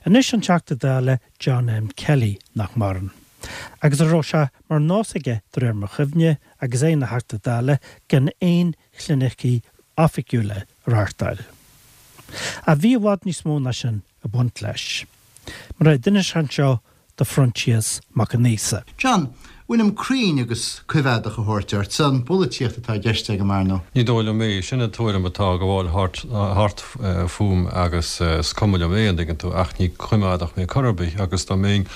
Anois an Teachta Dála John M. Kelly, nach maireann. Agus a raibh sé mar nós aige, de réir mo chuimhne, agus é ina Theachta Dála, gan aon chlinicí oifigiúla a reáchtáil. Ach bhí i bhfad níos mó ná sin ag baint leis. Mar a d'inis sé anseo do Phroinsias Mac an Íosa. John, bhfuilim cruinn agus coimheádach a thabhairt ort? An pholaitíocht atá i gceist agam, ar ndóigh. Ní dóigh liom é. Sin an tuairim atá ag gabháil thart fúm agus is cuma liom é, an dtuigeann tú, ach ní coimeádach mé chor ar bith agus dá mbeinn,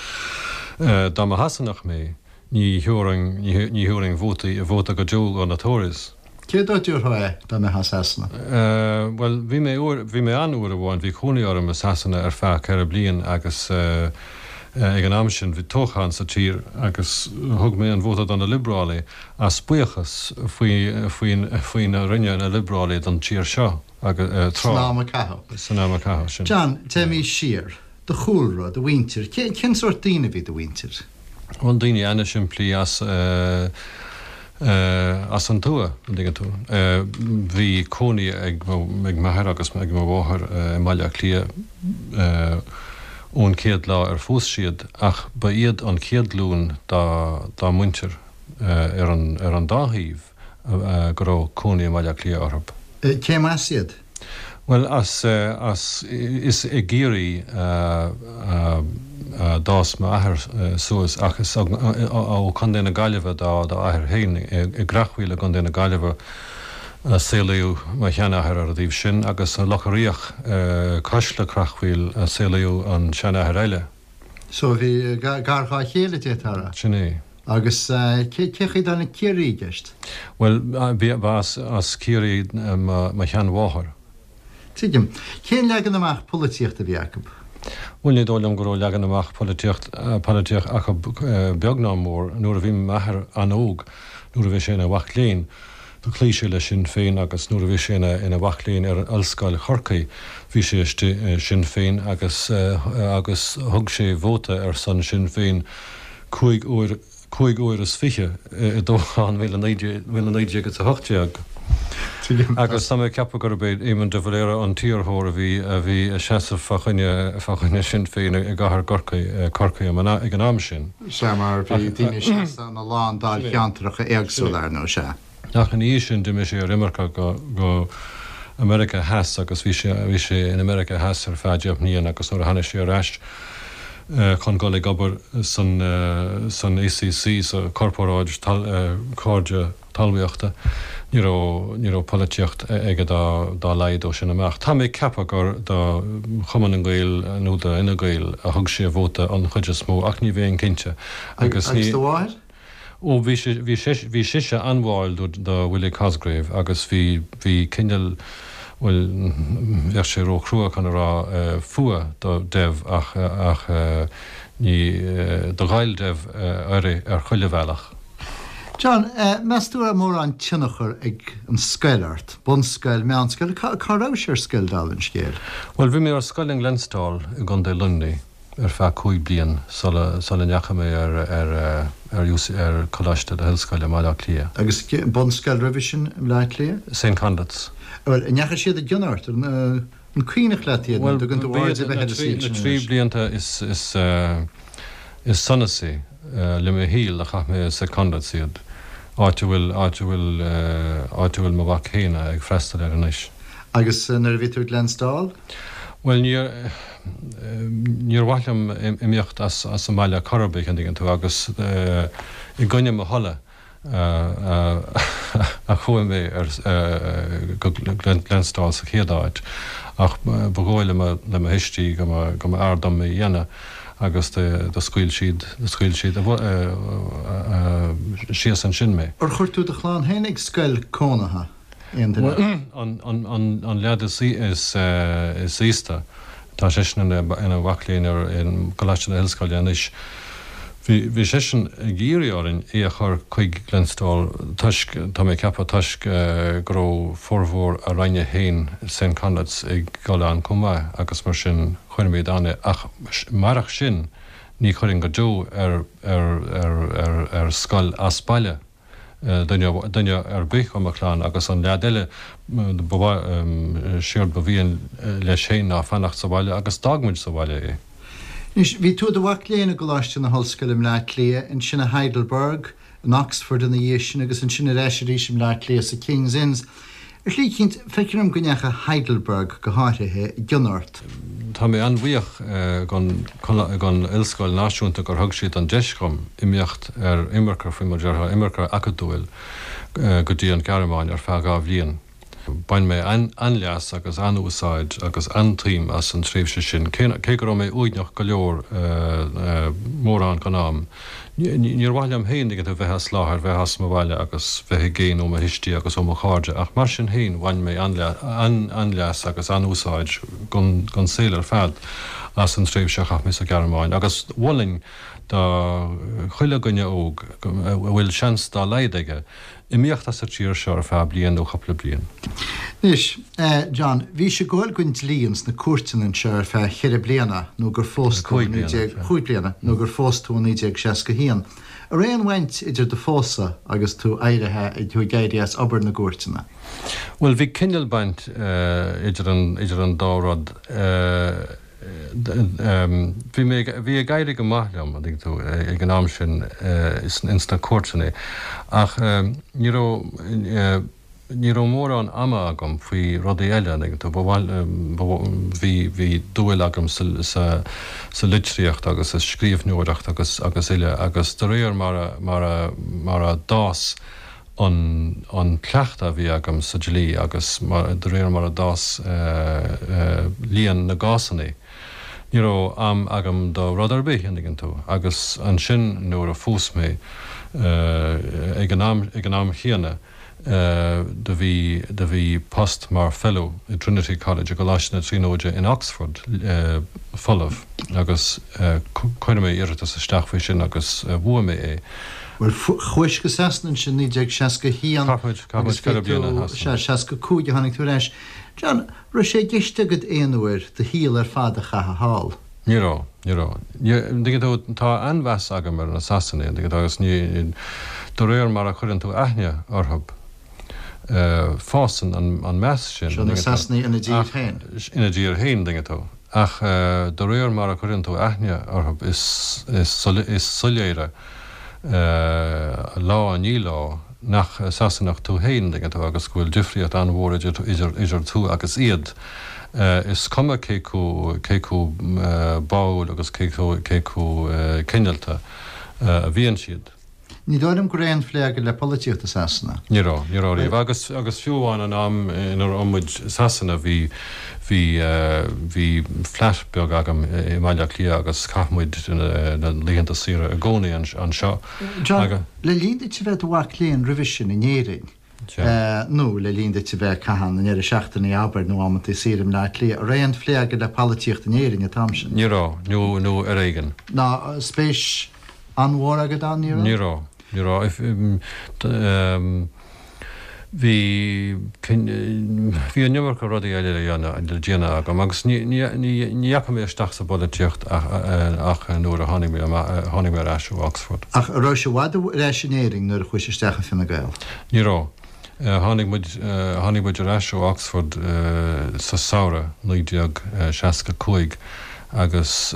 dá mba Shasanach mé, ní thabharfainn, ní thabharfainn vótaí, vóta go deo do na Tories. Cé dó a dtabharfá é dá mbeifeá i Sasana? Bhuel, bhí mé uair, bhí mé ann uair amháin, bhí cónaí orm i Sasana ar feadh 4 bliain agus ag an am sin bhí toghchán sa tír agus thug mé an vóta do na Liobrálaigh as buíochas faoi, faoin, faoina rinne na Liobrálaigh don tír seo agus tráth. San am a caitheadh. San am a caitheadh, sin. John, téimís siar. Do chúlra, do mhuintir, cén sórt daoine a bhí do mhuintir? Bhuel, daoine ana-shimplí as, as an tuath, an dtuigeann tú. Bhí cónaí ag m'athair agus ag mo mháthair i mBaile Átha Cliath ón chéad lá ar phós siad ach ba iad an chéad ghlúin dá muintir ar an dá thaobh go raibh cónaí i mBaile Átha Cliath orthu. Cé as iad? Bhuel, as, as, is i gCiarraí a d'fhás m'athair suas ach is ó Chontae na Gaillimhe dá athair féin. I gCreachmhaoil i gContae na Gaillimhe a saolaíodh mo sheanathair ar an dtaobh sin agus i Loch a' Riach cois le Creachmhaoil a saolaíodh an seanathair eile. So bhí gar dhá chéile, d'fhéadfá a rá. Sin é. Agus cé chaoi a dtáinig Ciarraí i gceist? Bhuel, ba as Ciarraí mo sheanmháthair. Tuigim. Cén leagan amach polaitíochta a bhí acu? Bhuel, ní dóigh liom go raibh leagan amach polaitíocht acu beag ná mór. Nuair a bhí m'athair an-óg, nuair a bhí sé ina mhac léinn, Do chloígh sé le Sinn Féin agus nuair a bhí sé ina mhac léinn ar Ollscoil Chorcaí bhí sé istigh i Sinn Féin agus agus thug sé vóta ar son Sinn Féin 5 uair 25 uair i dtoghchán 1918. Agus tá mé ag ceapadh gurb é Éamon de Valera an t-iarrthóir a bhí a bhí ag seasamh fá choinne fá choinne Sinn Féin i gcathair gCorcaí Corcaí ag an am sin. Sea, mar bhí daoine ag seasamh ina lán dáilcheantracha éagsúla, ar ndóigh, sea. Ach ina dhiaidh sin d'imigh sé ar imirce go, go America Theas agus bhí sé, bhí sé in America Theas ar feadh 10 mbliain agus nuair a tháinig sé ar ais chun dul ag obair san, san ACC, sa Corparáid Cairde Talmhaíochta, ní raibh, ní raibh polaitíocht aige dá, dá laghad ó sin amach. Tá mé ag ceapadh gur do Chumann na nGael nó do Fhine Gael a thug sé a vóta an chuid is mó ach ní bheinn cinnte. Agus ní. Agus do mháthair? Ó, bhí sí, bhí sí, bhí sise an-bháúil do, do Willie Cosgrave agus bhí, bhí cineál, bhuel, bheadh sé ró-chrua chun a rá fuath do Dev ach, ach ní, do ghoill Dev uirthi ar chuile bhealach. John, meas tú raibh mórán tionchar ag an scoil ort? Bunscoil, meánscoil, cá rabhais ar scoil dála an scéil? Bhuel, bhí mé ar scoil in Glenstal i gContae Luimnigh ar feadh 5 bliain sula sula ndeachaigh mé ar ar ar UC ar Choláiste na hOllscoile i mBaile Átha Cliath. Agus bunscoil roimhe sin i mBleá Cliath? St Conleth's. Bhuel, an ndeachaigh siad i gcion ort? An cuimhneach leat iad nó an dtugann tú aird ar bith ar an saol sin anois? Na trí blianta is sonasaí le mo shaol a chaith mé i St Conleth's iad, áit a bhfuil, áit a bhfuil, áit a bhfuil mo mhac féin ag freastal air anois. Agus nuair a bhí tú ag Glenstal? Bhuel, níor, níor mhaith liom imeacht as an mbaile chor ar bith, an dtuigeann tú, agus i gcoinne mo thola, a chuaigh mé ar go Glenstal sa chéad áit ach ba dhóigh le mo thuistí go mba fhearr dom é a dhéanamh agus do scaoil siad do scaoil siad síos ansin mé. Ar chuir tú do chlann féin ag scoil cónaithe? Aon duine acu? An leaid is aosta, tá seisean ina mhac léinn ar gColáiste na hOllscoile anois. Bhí seisean ag iarraidh orainn é a chur chuig Glenstal toisc, tá mé ag ceapadh, toisc go raibh formhór a ranga féin i St Conleth's ag dul ann chomh maith agus mar sin chuirimid ann é. Ach marach sin ní chuirfinn go deo ar scoil as baile. duine ar bith de mo chlann agus an leaid eile ba mhaith, séard ba mhian leis féin ná fanacht sa bhaile agus d'fhág muid sa bhaile é. Anois, bhí tú i do mhac léinn i gColáiste na hOllscoile i mBleá Cliath, ansin i Heidelberg, in Oxford ina dhiaidh sin agus ansin ar ais arís i mBleá Cliath sa King's Inns. Ar shlí eicínt, feictear dom go ndeachaigh Heidelberg, go háirithe, i gcion ort. Tá mé an-bhuíoch gon Ollscoil Náisiúnta gur thug siad an deis dhom imeacht ar imirce, faoi mar a déarfá, imirce acadúil go dtí an Ghearmáin ar feadh 2 bhliain. Bhain mé an-leas agus an-úsáid agus an-tsuim as an tréimhse sin, cé go raibh mé uaigneach go leor mórán den am. Níor mhaith liom féin a bheith as láthair, bheith as mo bhaile agus bheith i gcéin ó mo thuistí agus ó mo chairde, ach mar sin féin bhain mé an-leas agus an-úsáid don saol ar fad as an tréimhse a chaith mé sa Ghearmáin agus mholfainn do chuile dhuine óg a bhfuil seans dá laghad aige Imeacht as an tír seo ar feadh bliain nó cupla bliain. Anois, John, bhís ag gabháil don dlí ins na cúirteanna anseo ar feadh cheithre bliana nó gur phós tú i 19, chúig bliana, nó gur phós tú i 1961. An raibh aon bhaint idir do phósadh agus tú éirithe, tú ag éirí as obair na gcúirteanna? Bhuel, bhí cineál baint idir an, idir an dá rud. Bhí mé, bhí ag éirí go maith liom, an dtuigeann tú, ag an am sin ins na cúirteanna ach ní raibh, ní raibh mórán ama agam faoi rudaí eile, an dtuigeann tú, ba mhaith, bhí, bhí dúil agam sa, sa, sa litríocht agus sa scríbhneoireacht agus, agus uile agus de réir mar a, mar a, mar a d'fhás an an cleachtadh a bhí agam sa dlí agus de réir mar a d'fhás líon na gcásanna, ní raibh am agam do rud ar bith, an dtuigeann tú. Agus ansin nuair a phós mé, ag an am ag an am chéanna, do bhí do bhí post mar Fellow i Trinity College, i gColáiste na Tríonóide in Oxford, folamh agus chuir mé iarratas isteach faoi sin agus bhuaigh mé é. Bhuel, chuais go Sasana ansin 1961 agus bhí tú, sea, 65 a tháinig tú ar ais. John, raibh sé i gceist agat aon uair do shaol ar fad a chaitheamh thall? Ní raibh, ní raibh. An dtuigeann tú, tá an-mheas agam ar na Sasanaigh, an dtuigeann tú, agus ní, de réir mar a chuireann tú aithne orthu, fásann an meas sin. Seo na Sasanaigh ina dtír féin. Ina dtír féin, an dtuigeann tú. Ach de réir mar a chuireann tú aithne orthu, is soiléire lá i ndiaidh lá nach Sasanach tú féin, an dtuigeann tú, agus go bhfuil difríocht an-mhór idir tú agus iad. Is cuma cé chomh báúil agus cé chomh cineálta a bhíonn siad. Ní dóigh liom go raibh aon phlé agat le polaitíocht i Sasana. Ní raibh, ní raibh riamh. Agus, agus fiú amháin an am ina raibh muid i Sasana bhí, bhí, bhí flat beag agam i mBaile Átha Cliath agus chaith muid na laethanta saoire i gcónaí anseo. John, le linn duit a bheith i do mhac léinn roimhe sin in Éirinn, nó le linn duit a bheith ag caitheamh na ndeireadh seachtaine, abair, nó amanntaí saoire i mBleá Cliath, an raibh aon phlé agat le polaitíocht in Éirinn an t-am sin? Ní raibh, nó, nó ar éigean. Ná spéis an-mhór agat ann, ní raibh? Ní raibh, ní raibh. Bhí, bhí an iomarca rudaí eile le dhéanamh, le déanamh agam agus ní, ní, ní dheachaigh mé isteach sa bpolaitíocht ach nuair a tháinig mé amach, tháinig mé ar ais ó Oxford. Ach an raibh i bhfad ar ais in Éirinn nuair a chuais isteach i Fine Gael? Ní raibh. Tháinig muid, tháinig muid ar ais ó Oxford sa samhradh 1965 agus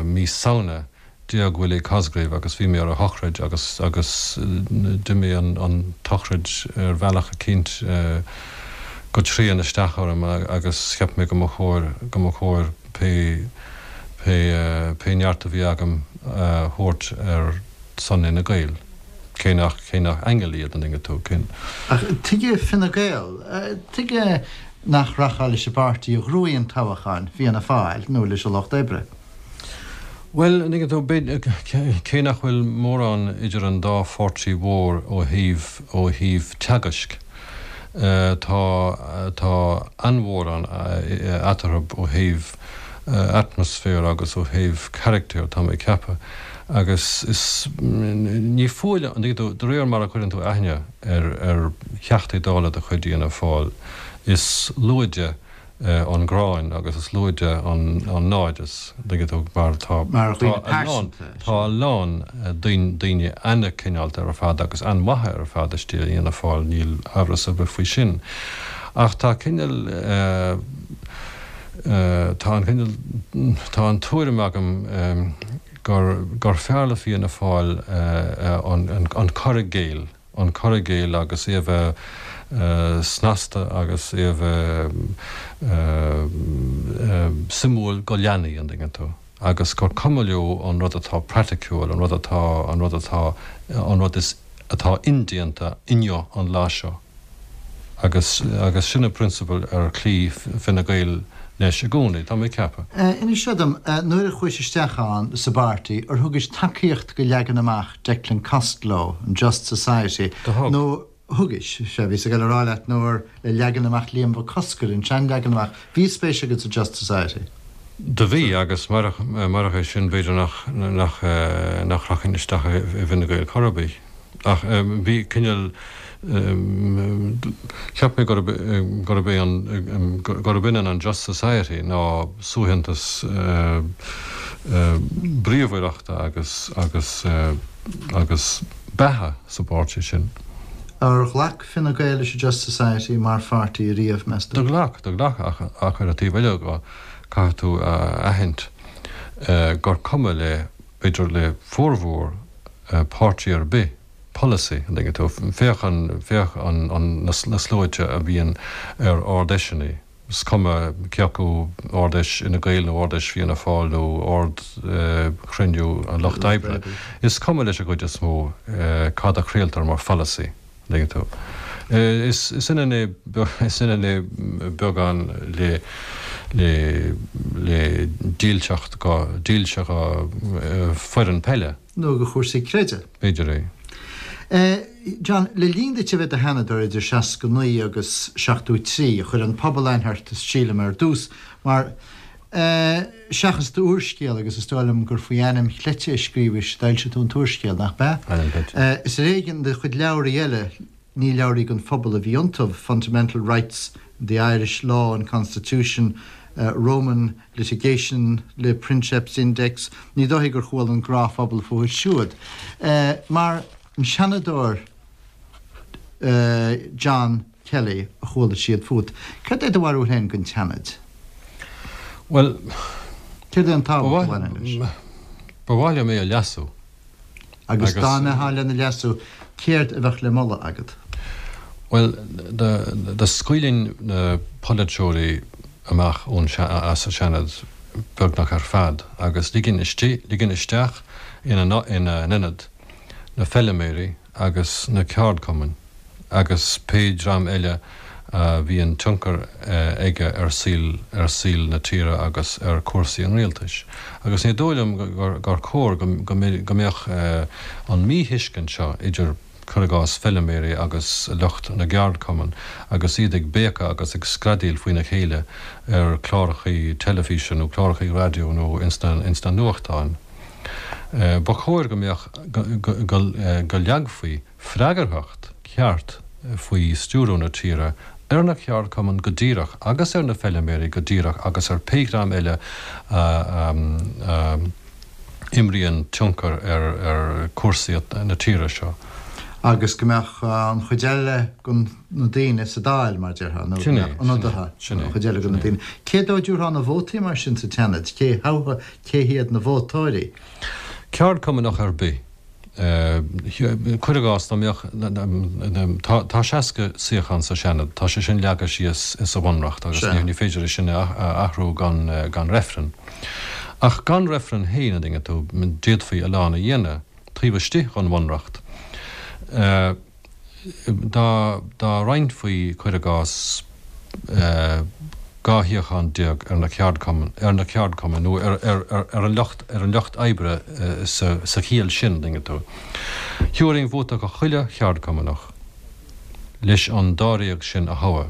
mí Samhna D'éag Willie Cosgrave agus bhí mé ar a shochraid agus agus d'imigh an an tsochraid ar bhealach eicínt go tréan isteach orm agus cheap mé go mba chóir go mba chóir pé pé pé neart a bhí agam a thabhairt ar son Fhine Gael. Cé nach cé nach aingil iad an dtuigeann tú cén. Ach tuige Fine Gael? Tuige nach rachfá leis an bpáirtí a ghnóthaigh an toghchán, Fianna Fáil, nó leis an Lucht Oibre? Bhuel, an dtuigeann tú, b'fhéidir, cé nach bhfuil mórán idir an dá pháirtí mhór ó thaobh, ó thaobh teagaisc, tá, tá an-mhórán eatarthu ó thaobh atmaisféir agus ó thaobh carachtair, tá mé ag ceapadh. Agus is, ní fuath liom, an dtuigeann tú, de réir mar a chuireann tú aithne ar, ar Theachtaí Dála de chuid Fhianna Fáil, is lúide, an ghráin agus is lúide an naimhdeas, an dtuigeann tú, mar tá, tá a lán, tá a lán daoine an-chineálta ar fad agus an-mhaithe ar fad istigh i bhFianna Fáil, níl amhras ar bith faoi sin. Ach tá cineál. Tá an cineál, tá an tuairim agam gur, gur fearr le Fianna Fáil an cur i gcéill, an cur i gcéill agus é a bheith snasta agus é a bheith suimiúil go leanaí, an dtuigeann tú, agus gur cuma leo an rud atá praiticiúil, an rud atá, an rud atá, an rud is, atá indéanta inniu an lá seo. Agus, agus sin an prionsabal ar chloígh Fine Gael leis i gcónaí, tá mé ag ceapadh. Inis seo dom, nuair a chuais isteach ann sa bpáirtí, ar thugais tacaíocht go leagan amach Declan Costello, an Just Society, Do thug. nó thugais, sea, bhíos ag dul a rá leat, nó ar le leagan amach Liam Mhic Cosgair, an sean-leagan amach, bhí spéis agat sa Just Society? Do bhí, agus murach, murach é sin b'fhéidir nach, nach, nach rachainn isteach i bhFine Gael chor ar bith. Ach bhí cineál, cheap mé gurb, gurb é an, gurb ionann an Just Society ná suaitheantas bríomhaireachta agus, agus, agus beatha sa bpáirtí sin. Ar ghlac Fine Gael leis an Just Society mar pháirtí ariamh, meas tú? Do ghlac, do ghlac ach, ach ar an taobh eile dhe, caithfidh tú a aithint gur cuma le, b'fhéidir le formhór páirtí ar bith, polasaí, an dtuigeann tú. Féach an, féach an, an, na sluaite a bhíonn ar Ard-Fheiseanna, is cuma cé acu Ard-Fheis Fhine Gael nó Ard-Fheis Fianna Fáil nó Ard-Chruinniú an Lucht Oibre, is cuma leis an gcuid is mó cad a chraoltar mar pholasaí. An dtuigeann tú. Is ionann é, is ionann é beagán le, le, le dílseacht go, dílse go foireann peile. Nó go chúrsaí creidimh. B'fhéidir é. John, le linn duit a bheith i do Sheanadóir idir 69 agus 73, chuir an pobal aithne ort, sílim, ar dtús, mar, Seachas d'úrscéal, agus is dóigh liom gur faoi ainm chleite a scríobhais, d'fhoilsigh tú an t-úrscéal, nach b'ea? Ainm cleite. Is ar éigean do chuid leabhraí eile, ní leabhraí don phobal a bhí iontu, Fundamental Rights, The Irish Law and Constitution, Roman Litigation, Le Princeps Index, ní dóichí gur chuala an gnáthphobal fúthu siúd. Mar an Seanadóir John. Kelly a chuala siad fút. Céard é do bharúil féin den tSeanad? Bhuel, Céard é an tábhacht a bhaineann leis? Ba mhaith liom é a leasú. Agus dá mbeifeá lena leasú, céard a bheadh le moladh agat? Bhuel, dá scaoilfinn na polaiteoirí amach ón, as an Seanad beagnach ar fad agus ligfinn istigh, ligfinn isteach ina n-ionad na feiliméirí agus na ceardchumainn agus pé dream eile a bhíonn tionchar aige ar saol ar saol na tíre agus ar chúrsaí an rialtais. Agus ní dóigh liom gur chóir go mbeadh an míthuiscint seo idir, cuir i gcás, feiliméirí agus lucht na gceardchumann agus iad ag béiceadh agus ag screadaíl faoina chéile ar chlárachaí teilifíse nó clárachaí raidió nó ins na nuachtáin. Ba chóir go mbeadh, go leagfaí freagarthacht cheart faoi stiúradh na tíre ar na ceardchumainn go díreach agus ar na feiliméirí go díreach agus ar pé dream eile a imríonn tionchar ar chúrsaí na tíre seo. Agus go mbeadh an chuid eile de na daoine sa Dáil, mar a déarfá, nó go mbeadh ionadaithe an chuid eile de na daoine. Cé dó a dtabharfá na vótaí mar sin sa tSeanad? Cé thoghfá Cé hiad na vótóirí? Ceardchumannach ar bith. Cuir i gcás, dá mbeadh, tá 60 suíochán sa Seanad, tá sé sin leagtha síos sa Bhunreacht agus ní féidir é sin a athrú gan reifreann. Ach gan reifreann féin, an dtuigeann tú, d'fhéadfaí a lán a dhéanamh taobh istigh den Bhunreacht. Dá roinnfí, cuir i gcás, 12 shuíochán ar na ceardchumainn, ar na ceardchumainn nó ar an lucht, ar an lucht oibre sa chiall sin, an dtuigeann tú. Thabharfainn vóta do chuile cheardchumannach leis an dáréag sin a thoghadh.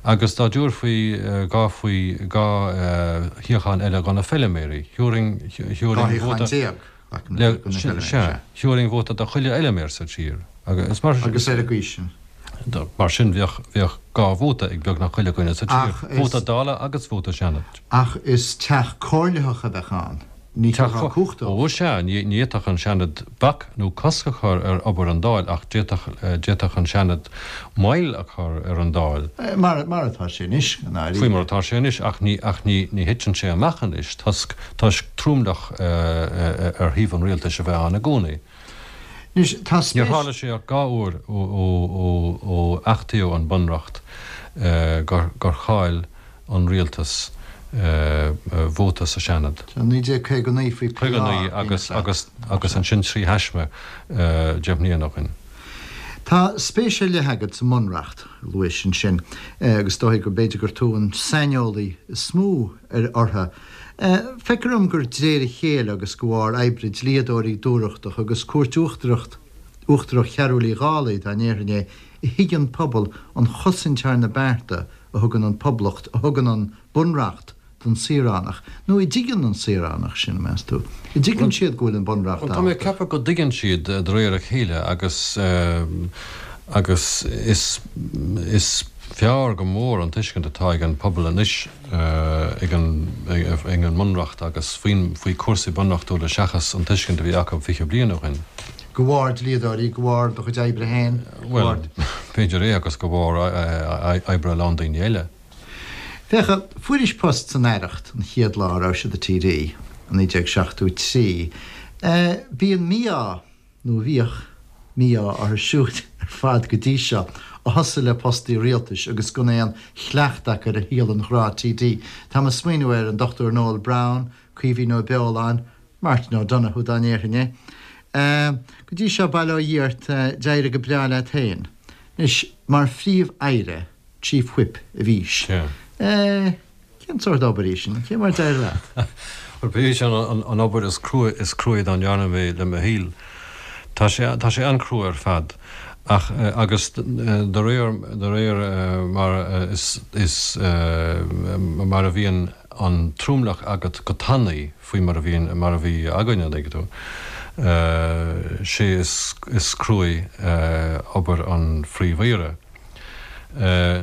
Agus dá dtabharfaí 2 faoi, 2 shuíochán eile do na feiliméirí, thabharfainn, thabharfainn vóta. 12 shuíochán. Sea, thabharfainn vóta do chuile fheiliméar sa tír. Agus mar Agus ar an gcaoi sin. Mar sin bheadh, bheadh 2 vóta ag beagnach chuile dhuine sa tír, vóta Dála agus vóta Seanaid. Ach is teach comhairleach a bheadh ann. Ní thabharfá cumhacht dóibh. Ó sea, ní fhéadfadh an Seanad bac nó cosc a chur ar obair an Dáil ach d'fhéadfadh, d'fhéadfadh an Seanad moill a chur ar an Dáil. Mar, mar atá sé anois, i ndáiríre. Faoi mar atá sé anois ach ní, ach ní, ní thiteann sé amach anois toisc, toisc tromlach ar thaobh an rialtais a bheith ann i gcónaí. Anois, tá spéis. Níor tharla sé ach 2 uair ó, ó, ó, ó achtaíodh an Bunreacht gur, gur chaill an rialtas vóta sa Seanad. 1959 faoi PÁ. 59 agus agus agus ansin 3 thaisme 10 mbliana ó shin. Tá spéis ar leith agat sa mBunreacht, a luais ansin, agus is dóigh go mb'fhéidir gur tú an saineolaí is mó ar orthu. Feictear dom gur d'réir a chéile agus de bharr oibre dlíodóirí dúthrachtach agus Cúirt Uachtarach Uachtarach Chearúil Uí Dhálaigh, dá ndéarfainn é, a thuig an pobal an chosaint thar na bearta a thugann an Poblacht, a thugann an Bunreacht don saoránach, nó a dtuigeann an saoránach sin, meas tú? A dtuigeann siad go bhfuil an Bunreacht Bhuel, tá mé ag ceapadh go dtuigeann siad de réir a chéile agus, agus is, is fearr go mór an tuiscint atá ag an pobal anois ag an, ag an mBunreacht agus faoin, faoi chúrsaí bunreachtúla seachas an tuiscint a bhí acu 20 bliain ó shin. De bharr dlíodóirí, de bharr do chuid oibre féin, de bharr. Bhuel, b'fhéidir é agus de bharr oibre a lán daoine eile. Féach, fuairis post san Aireacht an chéad lá a raibh i do TD, i 1973. Bíonn mí-ádh, nó bhíodh, mí-ádh orthu siúd ar fad go dtí seo a thosaigh le postaí rialtais agus gan aon chleachtadh acu ar shaol an ghnáth-TD. Táim ag smaoineamh ar an Dr Noel Browne, Caoimhín Ó Beoláin, Martin O'Donoghue dá ndéarfainn é. Go dtí seo, bail ó Dhia ort, d'éirigh go breá leat féin. Anois, mar Phríomh-Aire, Chief Whip, a bhís. Cén sórt obair í sin? Cé mar a d'éirigh leat? Bhuel, b'í sin an obair is crua is cruaí dá ndearna mé le mo shaol. Tá sé, tá sé an-chrua ar fad. Ach, agus de réir, de réir mar is, is, mar a bhíonn an tromlach agat go tanaí, faoi mar a bhíonn, mar a bhí againne, an dtuigeann tú. Sé is, is cruaí obair an Phríomh-Aoire.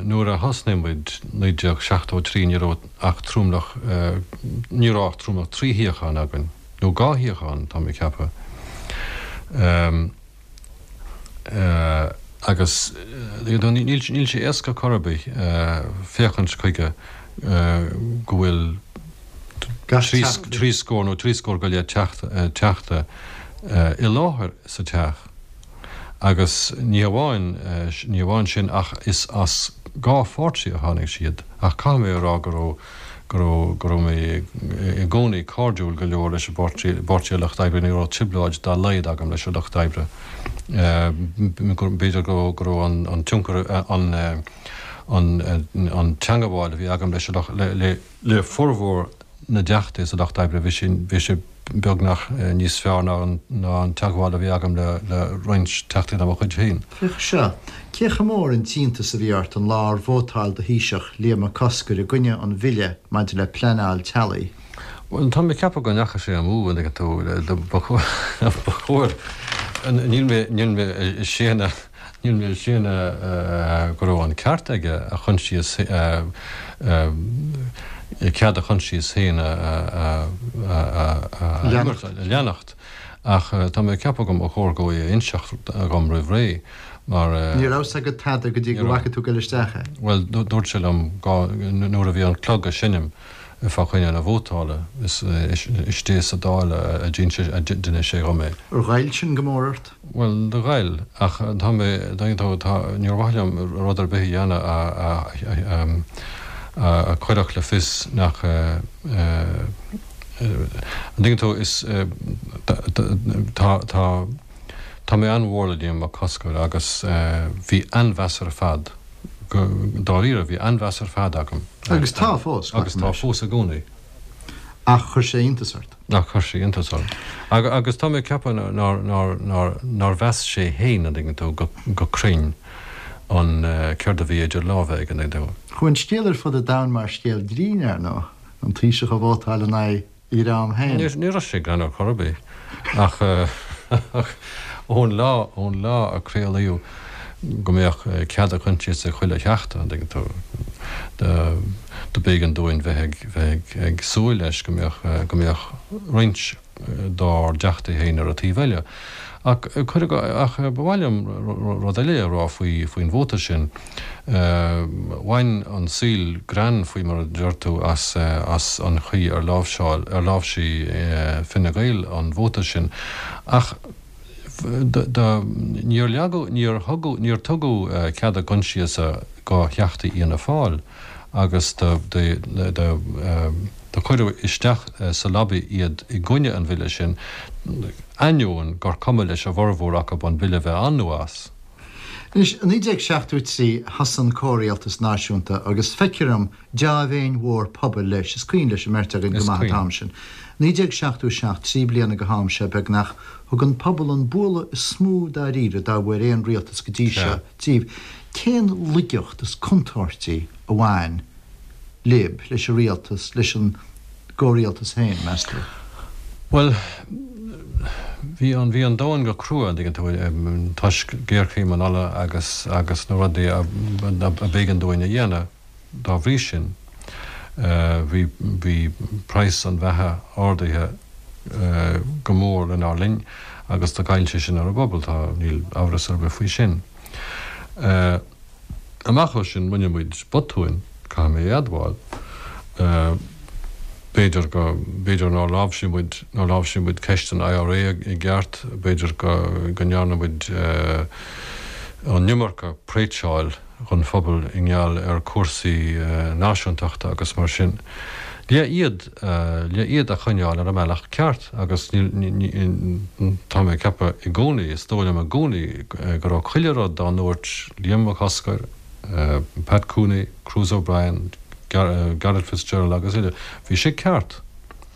Nuair a thosnaigh muid, 1973, ní raibh ach tromlach, ní raibh ach tromlach 3 shuíochán againn, nó 2 shuíochán, tá mé ag ceapadh. Agus níl sé éasca chor ar bith féachaint chuige go bhfuil 3 scór nó 3 scór go leith teachta i láthair sa teach agus ní hamháin ní hamháin sin ach is as 2 pháirtí a tháinig siad ach caithfidh mé a rá go raibh go raibh, go raibh mé i gcónaí cairdiúil go leor leis an bPáirtí, bPáirtí an Lucht Oibre, ní raibh trioblóid dá laghad agam leis an Lucht Oibre. B'fhéidir go raibh, go raibh an, an tionchar, an, an, an teangabháil a bhí agam leis an Lucht, le, le, le formhór na dTeachtaí sa Lucht Oibre, bhí sé, bhí sé beagnach níos fearr ná an, ná an teagmháil a bhí agam le, le roinnt Teachtaí de mo chuid féin. Féach seo, cé chomh mór an t-iontas a bhí ort an lá ar vótáil do Thaoiseach, Liam Mac Cosgair, i gcoinne an bhille maidir le pleanáil teaghlaigh? Bhuel, tá mé ag ceapadh go ndeachaigh sé amú, an dtuigeann tú, ba chóir, níl mé, níl mé ag séanadh, Níl mé ag séanadh go raibh an ceart aige a choinsias, cead a choinsias féin a leanacht ach tá mé ag ceapadh go mba chóir dhó é a inseacht dhom roimh ré mar. Ní raibh 's agat tada go dtí go bhfaca tú ag dul isteach é. Bhuel, dúirt sé liom nuair a bhí an clog ag seinm fá choinne na vótála, istigh sa Dáil a d'inis sé dhom é. Ar ghoill sin go mór ort? Bhuel, do ghoill, ach tá mé, tá, tá, níor mhaith liom rud ar bith a dhéanamh a, a, a chuirfeadh le fios nach, an dtuigeann tú, is, tá, tá, tá mé an-mhór le Liam Mac Cosgair agus bhí an-mheas ar fad, go, dáiríre, bhí an-mheas ar fad agam. Agus tá fós, Agus tá fós i gcónaí. Ach chuir sé iontas ort. Ach chuir sé iontas orm. Agus tá mé ag ceapadh nár, nár, nár, nár mheas sé fhéin, an dtuigeann tú, go, go cruinn an céard a bhí idir lámha aige, an dtuigeann tú. Chuaigh an scéal ar fud an domhain mar scéal grinn, ar ndóigh, an Taoiseach ag vótáil in aghaidh a dhream féin. Ní raibh sé greannmhar chor ar bith. Ach, ach ón lá, ón lá a craolaíodh go mbeadh cead a choinsiasa ag chuile theachta, an dtuigeann tú, do. Do b'éigean dúinn bheith ag, bheith ag, ag súil leis go mbeadh, go mbeadh roinnt dár dteachtaí féin ar an taobh eile. Ach cuireadh, ach ba mhaith liom rud eile a rá faoi, faoin vóta sin. Bhain an saol greann, faoi mar a deir tú, as, as an chaoi ar láimhseáil, ar láimhsigh Fine Gael an vóta sin. Ach do, níor leagadh, níor thugadh, níor tugadh cead a gcoinsiasa go theachtaí Fhianna Fáil agus do, do, do, do cuireadh isteach sa lobby iad i gcoinne an bhille sin, ainneoin gur cuma leis a bhformhór acu an bille bheith ann nó as. Anois, i 1973 thosaigh an Comhrialtas Náisiúnta agus feictear dom dea-mhéin mhór pobail leis, is cuimhin leis an mbeirt againn go maith an t-am sin. 1977, 3 bliana go ham seo beagnach, thug an pobal an bualadh is mó dáiríre dá bhfuair aon rialtas go dtí seo díobh. Cén laigeacht is contúirtí a bhain libh, leis an rialtas, leis an gcomhrialtas féin, meas tú? Bhuel, bhí an, bhí an domhan go crua, an dtuigeann tú, toisc géarchéim an ola agus, agus na rudaí a, a b'éigean dúinn a dhéanamh dá bhrí sin. Bhí, bhí praghas an bheatha ardaithe go mór lenár linn agus do ghoill sé sin ar an bpobal, tá, níl amhras ar bith faoi sin. Amach ó sin, rinne muid botúin, caithfidh mé a admháil. B'fhéidir go, b'fhéidir nár láimhsigh muid, nár láimhsigh muid ceist an IRA i gceart, b'fhéidir go, go ndearna muid an iomarca preitseáil dhon phobal i ngeall ar cúrsaí náisiúntachta agus mar sin. Le iad, le iad a choinneáil ar an mbealach ceart agus níl, ní, tá mé ag ceapadh i gcónaí, is dóigh liom i gcónaí go raibh chuile rud dá ndúirt Liam Mac Cosgair, Pat Cooney, Cruise O'Brien, Garret Fitzgerald agus eile, bhí sé ceart.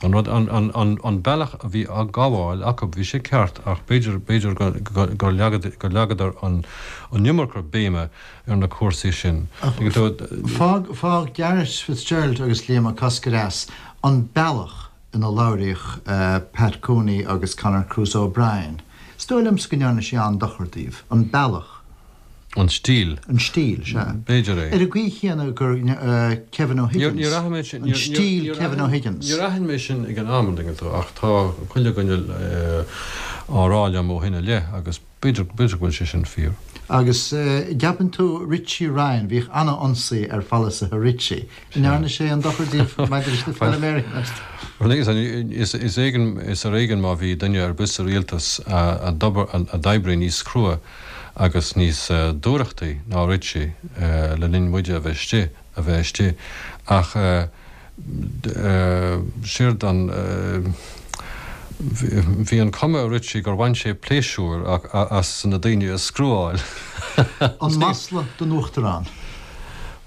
An rud, an, an, an, an bealach a bhí á gabháil acu, bhí sé ceart ach b'fhéidir, b'fhéidir go, go, gur leagadar an, an iomarca béime ar na cúrsaí sin. Fág, fág Garret Fitzgerald agus Liam Mac Cosgair as an bealach ina labhraíodh Pat Cooney agus Conor Cruise O'Brien. Is dóigh liomsa go ndearna sé an-dochar daoibh. An bealach. An stíl. An stíl, sea. B'fhéidir é. Ar an gcaoi chéanna gur Kevin O'Higgins. Níor aithin mé sin. An stíl Kevin O'Higgins. Níor aithin mé sin ag an am, an dtuigeann tú, ach tá chuile dhuine á rá liom ó shin i leith agus B'fhéidir, b'fhéidir go bhfuil sé sin fíor. Agus gceapann tú Richie Ryan, bhíodh an-ionsaí ar pholasaithe Richie. An ndearna sé aon dochar daoibh maidir leis na feilméaraí, meas tú? Bhuel, is is éigean, is ar éigean má bhí duine ar bith sa rialtas a d'obair, a d'oibrigh níos crua agus níos dúthrachtaí ná Richie le linn muide a bheith istigh, a bheith istigh. Ach. Séard an, bhí an cuma ar Richie gur bhain sé pléisiúr as na daoine a screwáil. An masla don Uachtarán?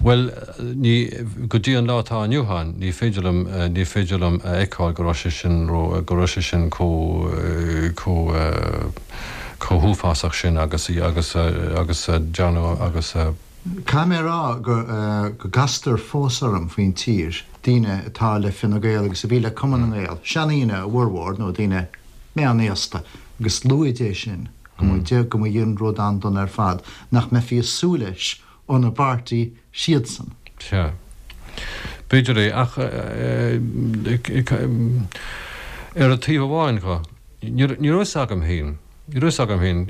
Bhuel, ní, go dtí an lá atá inniu ann, ní féidir liom, ní féidir liom a fheiceáil go raibh sé sin ró, go raibh sé sin chomh, chomh, chomh huafásach sin agus, agus, agus a dearnadh agus a. Caithfidh mé a rá go gcastar fós orm faoin tír, daoine atá le Fine Gael agus a bhí le Cumann na nGael, seandaoine a bhformhór, nó daoine meánaosta, agus luaid é sin, go mba, go mba an rud an-dona ar fad, nach mbeifí ag súil leis óna bpáirtí siadsan. Sea. B'fhéidir é, ach ar an taobh amháin dho, ní raibh fhios agam féin, Ní raibh fhios agam féin,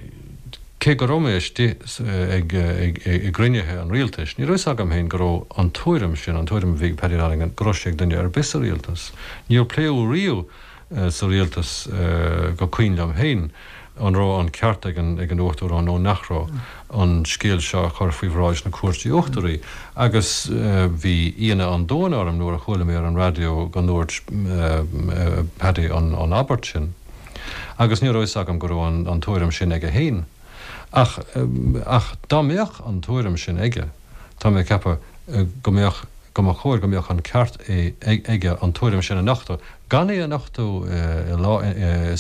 cé go raibh mé istigh ag i gcruinnithe an rialtais, ní raibh fhios agam féin go raibh an tuairim sin, an tuairim a bhí ag Paddy Donegan, go raibh sé ag duine ar bith sa rialtas. Níor pléadh riamh sa rialtas, go cuimhin liom féin, an raibh an ceart ag an ag an Uachtarán nó nach raibh, an scéal seo a chur faoi bhráid na Cúirte Uachtaraí. Agus bhí ionadh an domhain orm nuair a chuala mé ar an raidió go ndúirt Paddy an abairt sin. Agus ní raibh fhios agam go raibh an tuairim sin aige féin. Ach, ach dá mbeadh an tuairim sin aige, tá mé ag ceapadh go mbeadh, go mba chóir go mbeadh an ceart aige an tuairim sin a nochtadh, gan é a nochtadh i,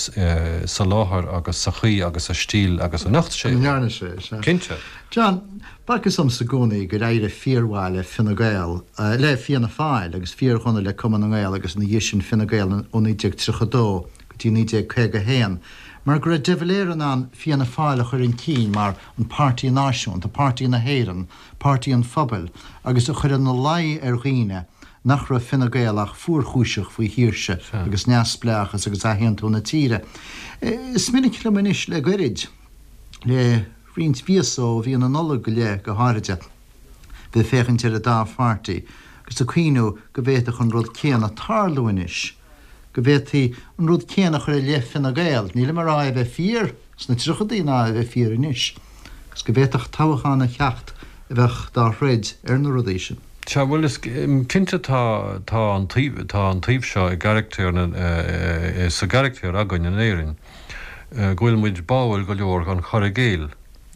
sa láthair agus sa chaoi agus sa stíl agus a nocht sé é. ndearna sé, sea. Cinnte. John, b'fhacthas domsa i gcónaí gur éirigh fíormhaith le Fine Gael, le Fianna Fáil agus fíordhona le Cumann na nGael agus ina dhiaidh sin Fine Gael ó 1932 go dtí 1951, mar go raibh de Valera in ann Fianna Fáil a chur chun cinn mar an páirtí náisiúnta, páirtí na hÉireann, páirtí an phobail agus a chur ina luí ar dhaoine. nach raibh Fine Gael ach fuarchúiseach faoi shaoirse agus neamhspleáchas agus athaontú na tíre. Is minic liom anois le goirid, le roinnt mhíosa ó mhí na Nollag go leith go háiride, bheith ag féachaint ar an dá pháirtí agus ag cuimhniú go bhféadfadh an rud céanna tarlú anois, go bhféadfaí an rud céanna a chur i leith Fine Gael, nílim ag rá é a bheith fíor sna tríochadaí ná é a bheith fíor anois, agus go bhféadfadh toghchán a theacht a bheadh dá throid ar na rudaí sin. Sea, bhuel, is cinnte tá, tá an taobh, tá an taobh seo i gcarachtar na, sa gcarachtar againn in Éirinn, go bhfuil muid báúil go leor don chur i gcéill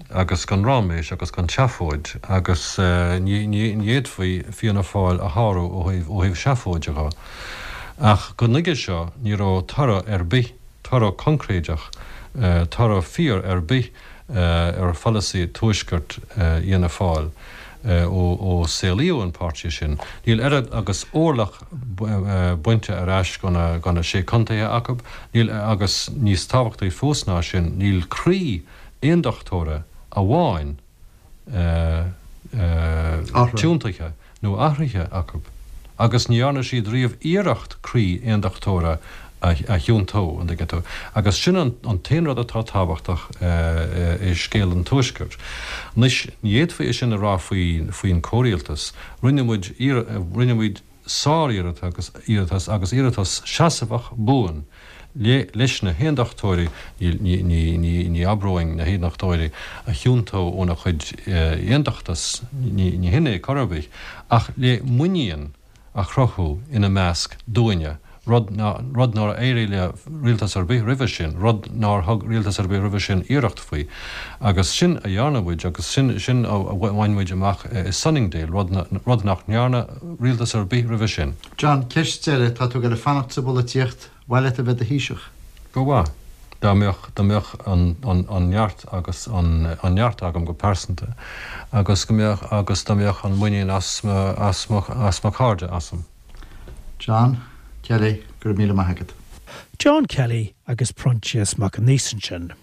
agus don ráiméis agus don tseafóid agus ní, ní, ní fhéadfaí Fianna Fáil a shárú ó thaobh, ó thaobh seafóide dho. Ach go nuige seo ní raibh toradh ar bith, toradh coincréideach, toradh fíor ar bith ar pholasaí Tuaiscirt Fhianna Fáil ó saolaíodh an páirtí sin. Níl oiread agus orlach bainte ar ais de na Sé Contaetha acu, níl, agus níos tábhachtaí fós ná sin, níl croí aondachtóra amháin tiontaithe nó athraithe acu, agus ní dhearna siad riamh iarracht croí aondachtóra a thiontú, an dtuigeann tú. Agus sin an t-aon rud atá tábhachtach i scéal an Tuaiscirt. Anois, ní fhéadfaí é sin a rá faoin comhrialtas. Rinne muid, rinne muid sár-iarratas agus iarratas seasmhach buan leis na hAondachtóirí, ní abróinn na hAondachtóirí a thiontú óna chuid aondachtas, ní hin é chor ar bith, ach le muinín a chruthú ina measc dúinne, rud rud nár éirigh le rialtas ar bith roimhe sin, rud nár thug rialtas ar bith roimhe sin iarracht faoi. Agus sin a dhearna muid agus sin sin a bhain muid amach i Sunningdale, rud rud nach ndearna rialtas ar bith roimhe sin. John, ceist deiridh, tá tú ag goil ag fanacht sa bpolaitíocht, mhaith leat a bheith i do Thaoiseach? Ba mhaith. Dá mbeadh, dá mbeadh an, an, an neart agus an, an neart agam go pearsanta agus go mbeadh, agus dá mbeadh an muinín as mo, as mo, as mo chairde asam. John Kelly, go raibh míle maith agat. John Kelly agus Proinsias Mac Aonghusa ansin.